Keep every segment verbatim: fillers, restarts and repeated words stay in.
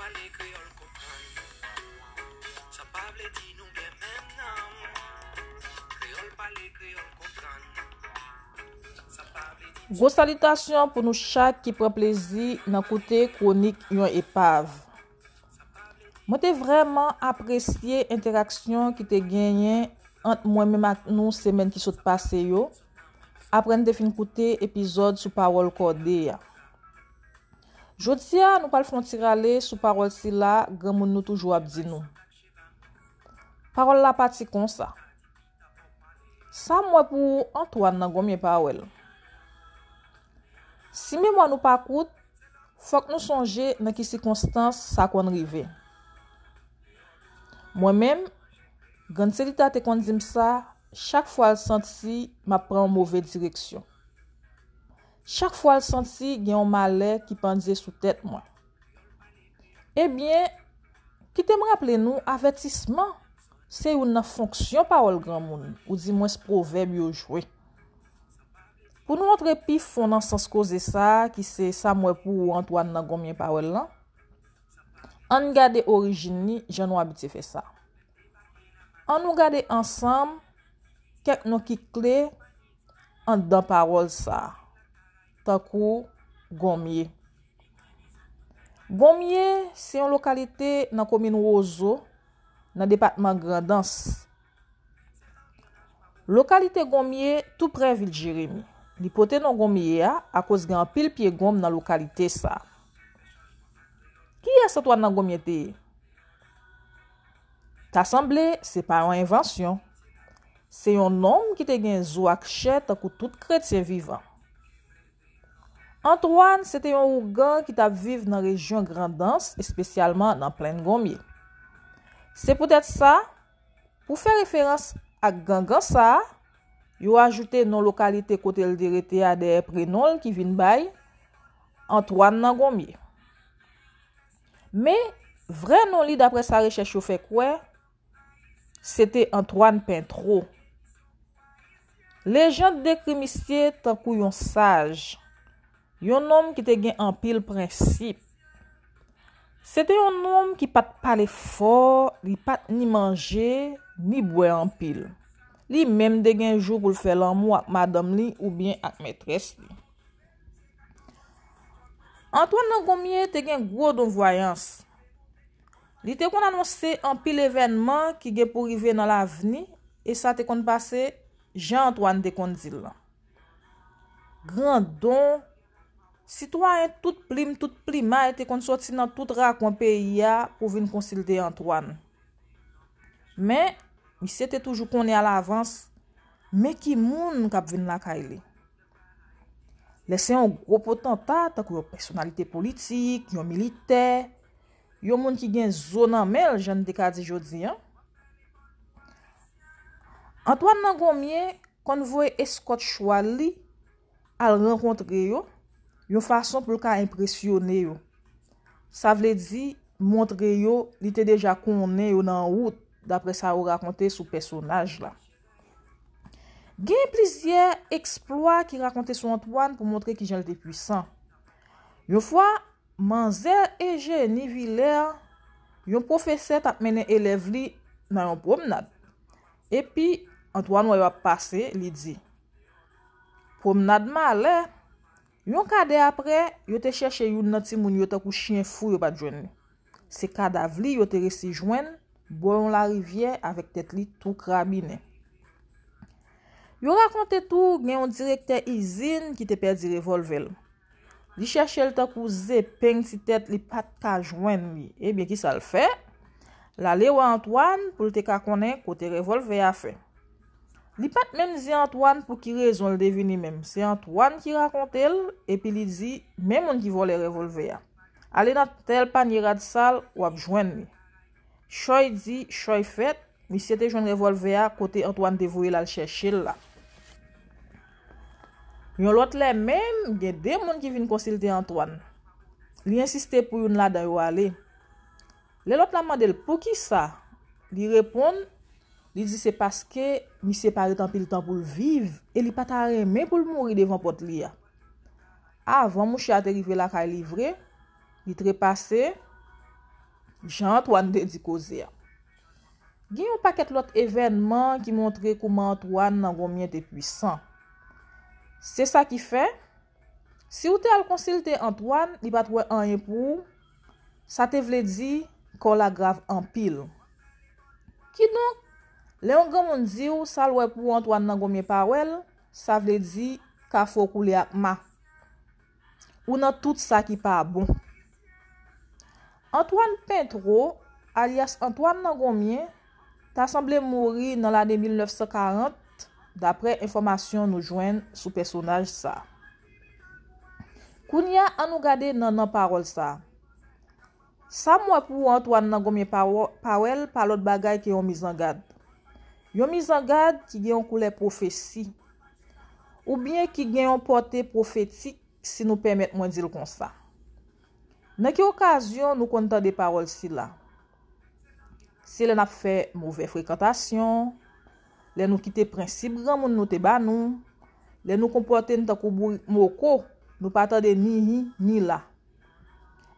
Pale kreyòl konprann. Sa pa vle di nou gen menm nanm. Kreyòl pale, kreyòl konprann. Sa pa vle di Gwo salitasyon pou nou chak ki pran plezi nan koute kwonik yon epav. Mwen te vrèman apresye entèraksyon ki te genyen ant mwen menm ak nou semèn ki sot pase yo, apre n te fin koute epizòd sou pawòl kòde a. Jodi a, nou pral fè yon ti rale sou pawòl sila granmoun nou toujou ap di nou. Pawòl la pati konsa. Sa m wè pou ou, Antoine nan Gonmye pa wè l. Si memwa nou pa kout, fòk nou sonje nan ki sikonstans sa konn rive. Mwen menm, Grann Selita te konn di m sa chak fwa l santi m ap pran yon move direksyon. Chak fwa l santi gen yon malè ki pandye sou tèt mwen. Ebyen, kite m raple nou avètisman se youn nan fonksyon pawòl granmoun, oudimwens pwovèb yo jwe. Pou nou antre pi fon nan sans koze sa a, ki se sa m wè pou ou Antoine nan Gonmye pa wè l lan, ann gade orijin li jan nou abitye fè sa. Ann nou gade ansanm kèk non ki kle anndan pawòl sa a, tankou Gonmye. Gonmye se yon lokalite nan komin Wozo, nan depatman Grandans. Lokalite Gonmye tou prè vil Jeremi. Li pote non Gonmye a akoz gen anpil pye gonm nan lokalite sa a. Kiyès Antoine nan Gonmye te ye? Ta sanble se pa yon envansyon. Se yon nonm ki te gen zo ak chè tankou tout kretyen vivan. Antoine se te yon ougan ki t ap viv nan rejyon Grandans, espesyalman nan Plenn Gonmye. Se poutèt sa, pou fè referans ak gangan sa a, yo ajoute non lokalite kote l te rete a dèyè prenon l ki vin bay Antoine nan Gonmye. Men, vrè non li, daprè sa rechèch yo fè kwè, se te Antoine Pentreau. Lejand dekri misye tankou yon saj, yon nonm ki te gen anpil prensip. Se te yon nonm ki pa t pale fò, li pa t ni manje, ni bwè anpil. Li menm te gen jou pou l fè lanmou ak madanm li oubyen ak mètrès li. Antoine nan Gonmye te gen gwo don vwayans. Li te konn anonse anpil evènman ki gen pou rive nan lavni, e sa te konn pase jan Antoine te konn di l lan. Grandon, sitwayen tout plim, tout plimay te konn soti nan tout rakwen peyi a pou vin konsilte Antoine. Men, misye te toujou konnen alavans men ki moun k ap vin lakay li. Lè se yon gwo potanta, tankou yon pèsonalite politik, yon militè, yon moun ki gen zo nan men l, jan n te ka di jodi a, Antoine nan Gonmye konn voye eskòt chwal li al rankontre yo, yon fason pou l ka enpresyone yo. Sa vle di, montre yo li te deja konnen yo nan wout, daprè sa yo rakonte sou pèsonaj la. Gen plizyè eksplwa ki rakonte sou Antoine pou montre kijan l te pwisan. Yon fwa, manzè Eugénie Villers, yon pwofesè, t ap mennen elèv li nan yon pwomnad. Epi, Antoine wè yo ap pase, li di, "Pwomnad malè." Yon kadè apre, yo te chèche youn nan timoun yo tankou chen fou, yo pa t jwenn li. Se kadav li yo te resi jwenn bò yon larivyè avèk tèt li tou krabinen. Yo rakonte tou gen yon direktè izin ki te pèdi revòlvè l. Li chèche l tankou zepeng ti tèt, li pa t ka jwenn li. Ebyen, kisa l fè? L ale wè Antoine pou l te ka konnen kote revòlvè a fè. Li pa t menm di Antoine pou ki rezon l te vini menm. Se Antoine ki rakonte l, epi li di, "Men moun ki vòlè revòlvè a. Ale nan tèl panye rad sal, w ap jwenn li." Chòy di, chòy fèt, misye te jwenn revòlvè a kote Antoine te voye l al chèche l la. Yon lòt lè menm, gen de moun ki vin konsilte Antoine. Li ensiste pou youn ladan yo ale. Lè lòt la mande l poukisa, li reponn, li di se paske misye pa ret anpil tan pou l viv e li pa ta renmen pou l mouri devan pòt li a. Avan mouche a te rive lakay li vre, li trepase, Jan Antwàn te di koze a. Gen yon pakèt lòt evènman ki montre kouman Antwàn nan Gonmyen te pwisan. Se sa ki fè, si w te al konsilte Antwàn, li pa t wè anyen pou ou, sa te vle di kò w la grav anpil. Kidonk, lè yon granmoun di w sa l wè pou ou Antwàn nan Gonmyen pa wè l, sa vle di kafou w koule ak ma. Ou nan tout sa ki pa bon. Antwàn Pentwo, alyas Antwàn nan Gonmyen, ta sanble mouri nan lane mil nèf san karant, daprè enfòmasyon nou jwenn sou pèsonaj sa. Kounye a, ann nou gade nan nan pawòl sa. Sa m wè pou Antwàn nan Gonmyen pa wè l pa lòt bagay ke yon mizangad. Yon mizangad ki gen yon koulè pwofesi, oubyen ki gen yon pòte pwofetik, si nou pèmèt mwen di l konsa. Nan ki okazyon nou konn tande pawòl sila? Se lè n ap fè movè frekantasyon, lè nou kite prensip granmoun nou te ba nou, lè nou konpòte n tankou bourik moko, nou pa tande ni hi ni la.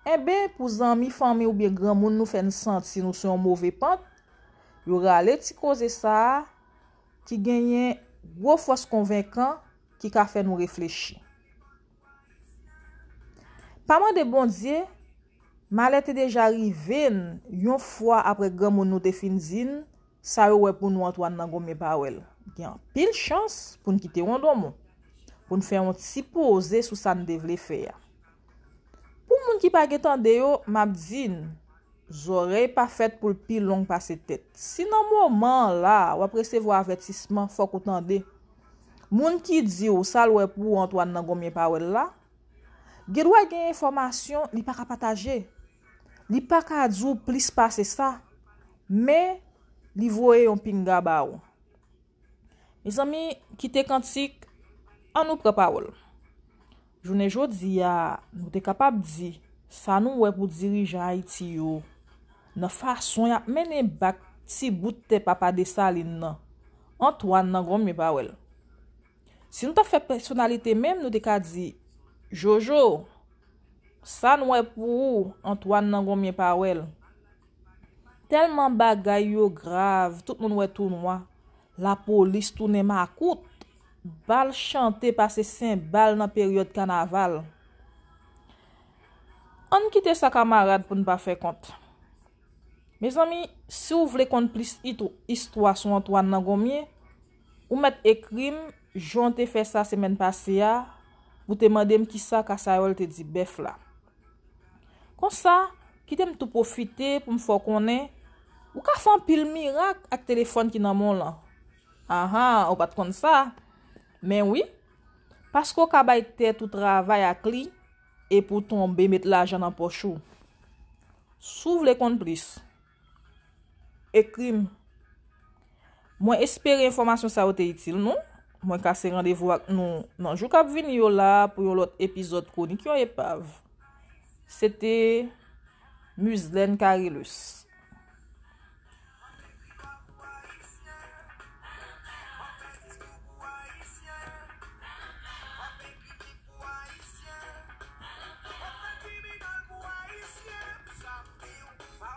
Enben, pou zanmi, fanmi oubyen granmoun nou fè n santi nou sou yon move pant, yo rale ti koze sa a ki genyen gwo fòs konvenkan ki ka fè nou reflechi. Pa mande Bondye, malè te deja rive n yon fwa apre granmoun nou te fin di n sa yo wè pou nou Antwàn nan Gonmyen pa wè l. Gen anpil chans pou n kite yon donmon, pou n fè yon ti poze sou sa n te vle fè a. Pou moun ki pa gen tande yo, m ap di n, zòrèy pa fèt pou l pi long pase tèt. Si nan moman an la, w ap resevwa avètisman, fòk ou tande. Moun ki di w sa l wè pou ou Antwàn nan Gonmyen pa wè l la, gen dwa gen enfòmasyon li pa ka pataje. Li pa ka di w plis pase sa, men li voye yon pinga ba ou. Mezanmi, kite kantik, ann nou pran pawòl. Jounen jodi a, nou te kapab di sa nou wè pou dirijan Ayiti yo nan fason y ap mennen bak ti bout tè Papa Desalin nan, Antwàn nan Gonmyen pa wè l. Si nou t ap fè pèsonalite menm, nou te ka di, Jojo, sa n wè pou ou, Antwàn nan Gonmyen pa wè l. Tèlman bagay yo grav, tout moun wè tou nwa. Lapolis tounen makout. Bal chante pase senbal nan peryòd kanaval. Ann kite sa kamarad pou n pa fè kont. Mezanmi, si w vle konn plis itw- istwa sou Antwàn nan Gonmyen, ou mèt ekri m jan w te fè sa semèn pase a, pou te mande m kisa Kasayòl te di bèf la. Konsa, kite m tou pwofite pou m fè w konnen, ou ka fè anpil mirak ak telefòn ki nan men w lan. Ahan, ou pa t konn sa? Men wi, paske w ka bay tèt ou travay ak li, epi w tonbe met lajan nan pòch ou. Si w vle konn plis, ekri m. Mwen espere enfòmasyon sa yo te itil nou. Mwen kase randevou ak nou nan jou k ap vini yo la pou yon lòt epizòd Kwonik yon Epav. Se te Muzlène Carillus.